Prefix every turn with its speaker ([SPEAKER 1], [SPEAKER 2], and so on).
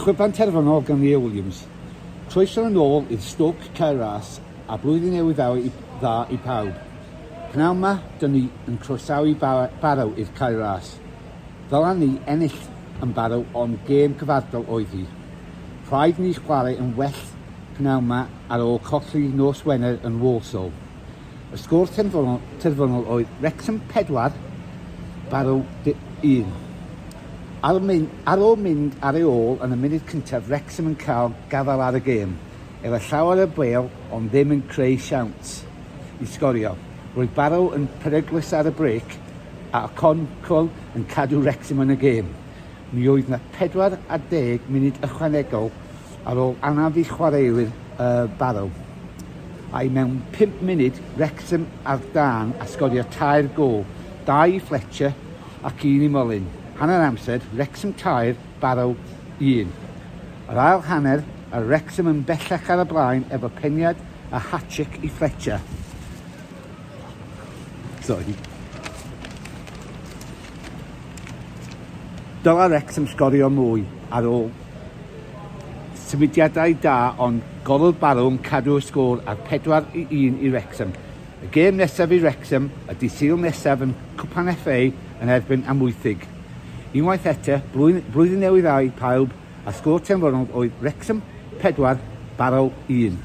[SPEAKER 1] Chwiban terfynol gan Leah Williams. Croeso yn ôl i'r Stoke Cae Ras a blwyddyn newydd dda i, dda i pawb. Pnawn 'ma, dyn ni yn croesawu Barrow i'r Cae Ras. Ddylan ni ennill yn Barrow ond gêm cyfardol oedd hi. Rhaid ni chwarae yn well pnawn 'ma ar ôl colli nos Wener yn Walsall. Y sgôr terfynol, terfynol oedd Wrexham 4, Barrow 1. Ar, mynd, ar ôl mynd ar ei ôl yn y munud cyntaf, Wrexham yn cael gafael ar y gêm. Efo llawer o bêl, ond ddim yn creu siawns i sgorio. Roedd Barrow yn peryglus ar y brêc a Okonkwo yn cadw Wrexham yn y gêm. Mi oedd na 40 munud ychwanegol ar ôl anaf i chwaraewyr Barrow. A'i mewn 5 munud, Wrexham ar dân a sgorio tair gôl, dau i Fletcher ac un i Mullin. Hanner amser, Wrexham 3, Barrow 1. Yr ail hanner, a Wrexham yn bellach ar y blaen efo peniad a hat-trick i Fletcher. Sorry. Dyla Wrexham sgorio mwy ar ôl symudiadau da ond golwr Barrow yn cadw'r sgôr ar 4-1 i Wrexham. Y gêm nesaf i Wrexham y dydd Sul nesaf yn Cwpan FA yn erbyn Amwythig. Unwaith eto, blwyddyn newydd dda i pawb a sgôr terfynol oedd Wrexham 4, Barrow 1.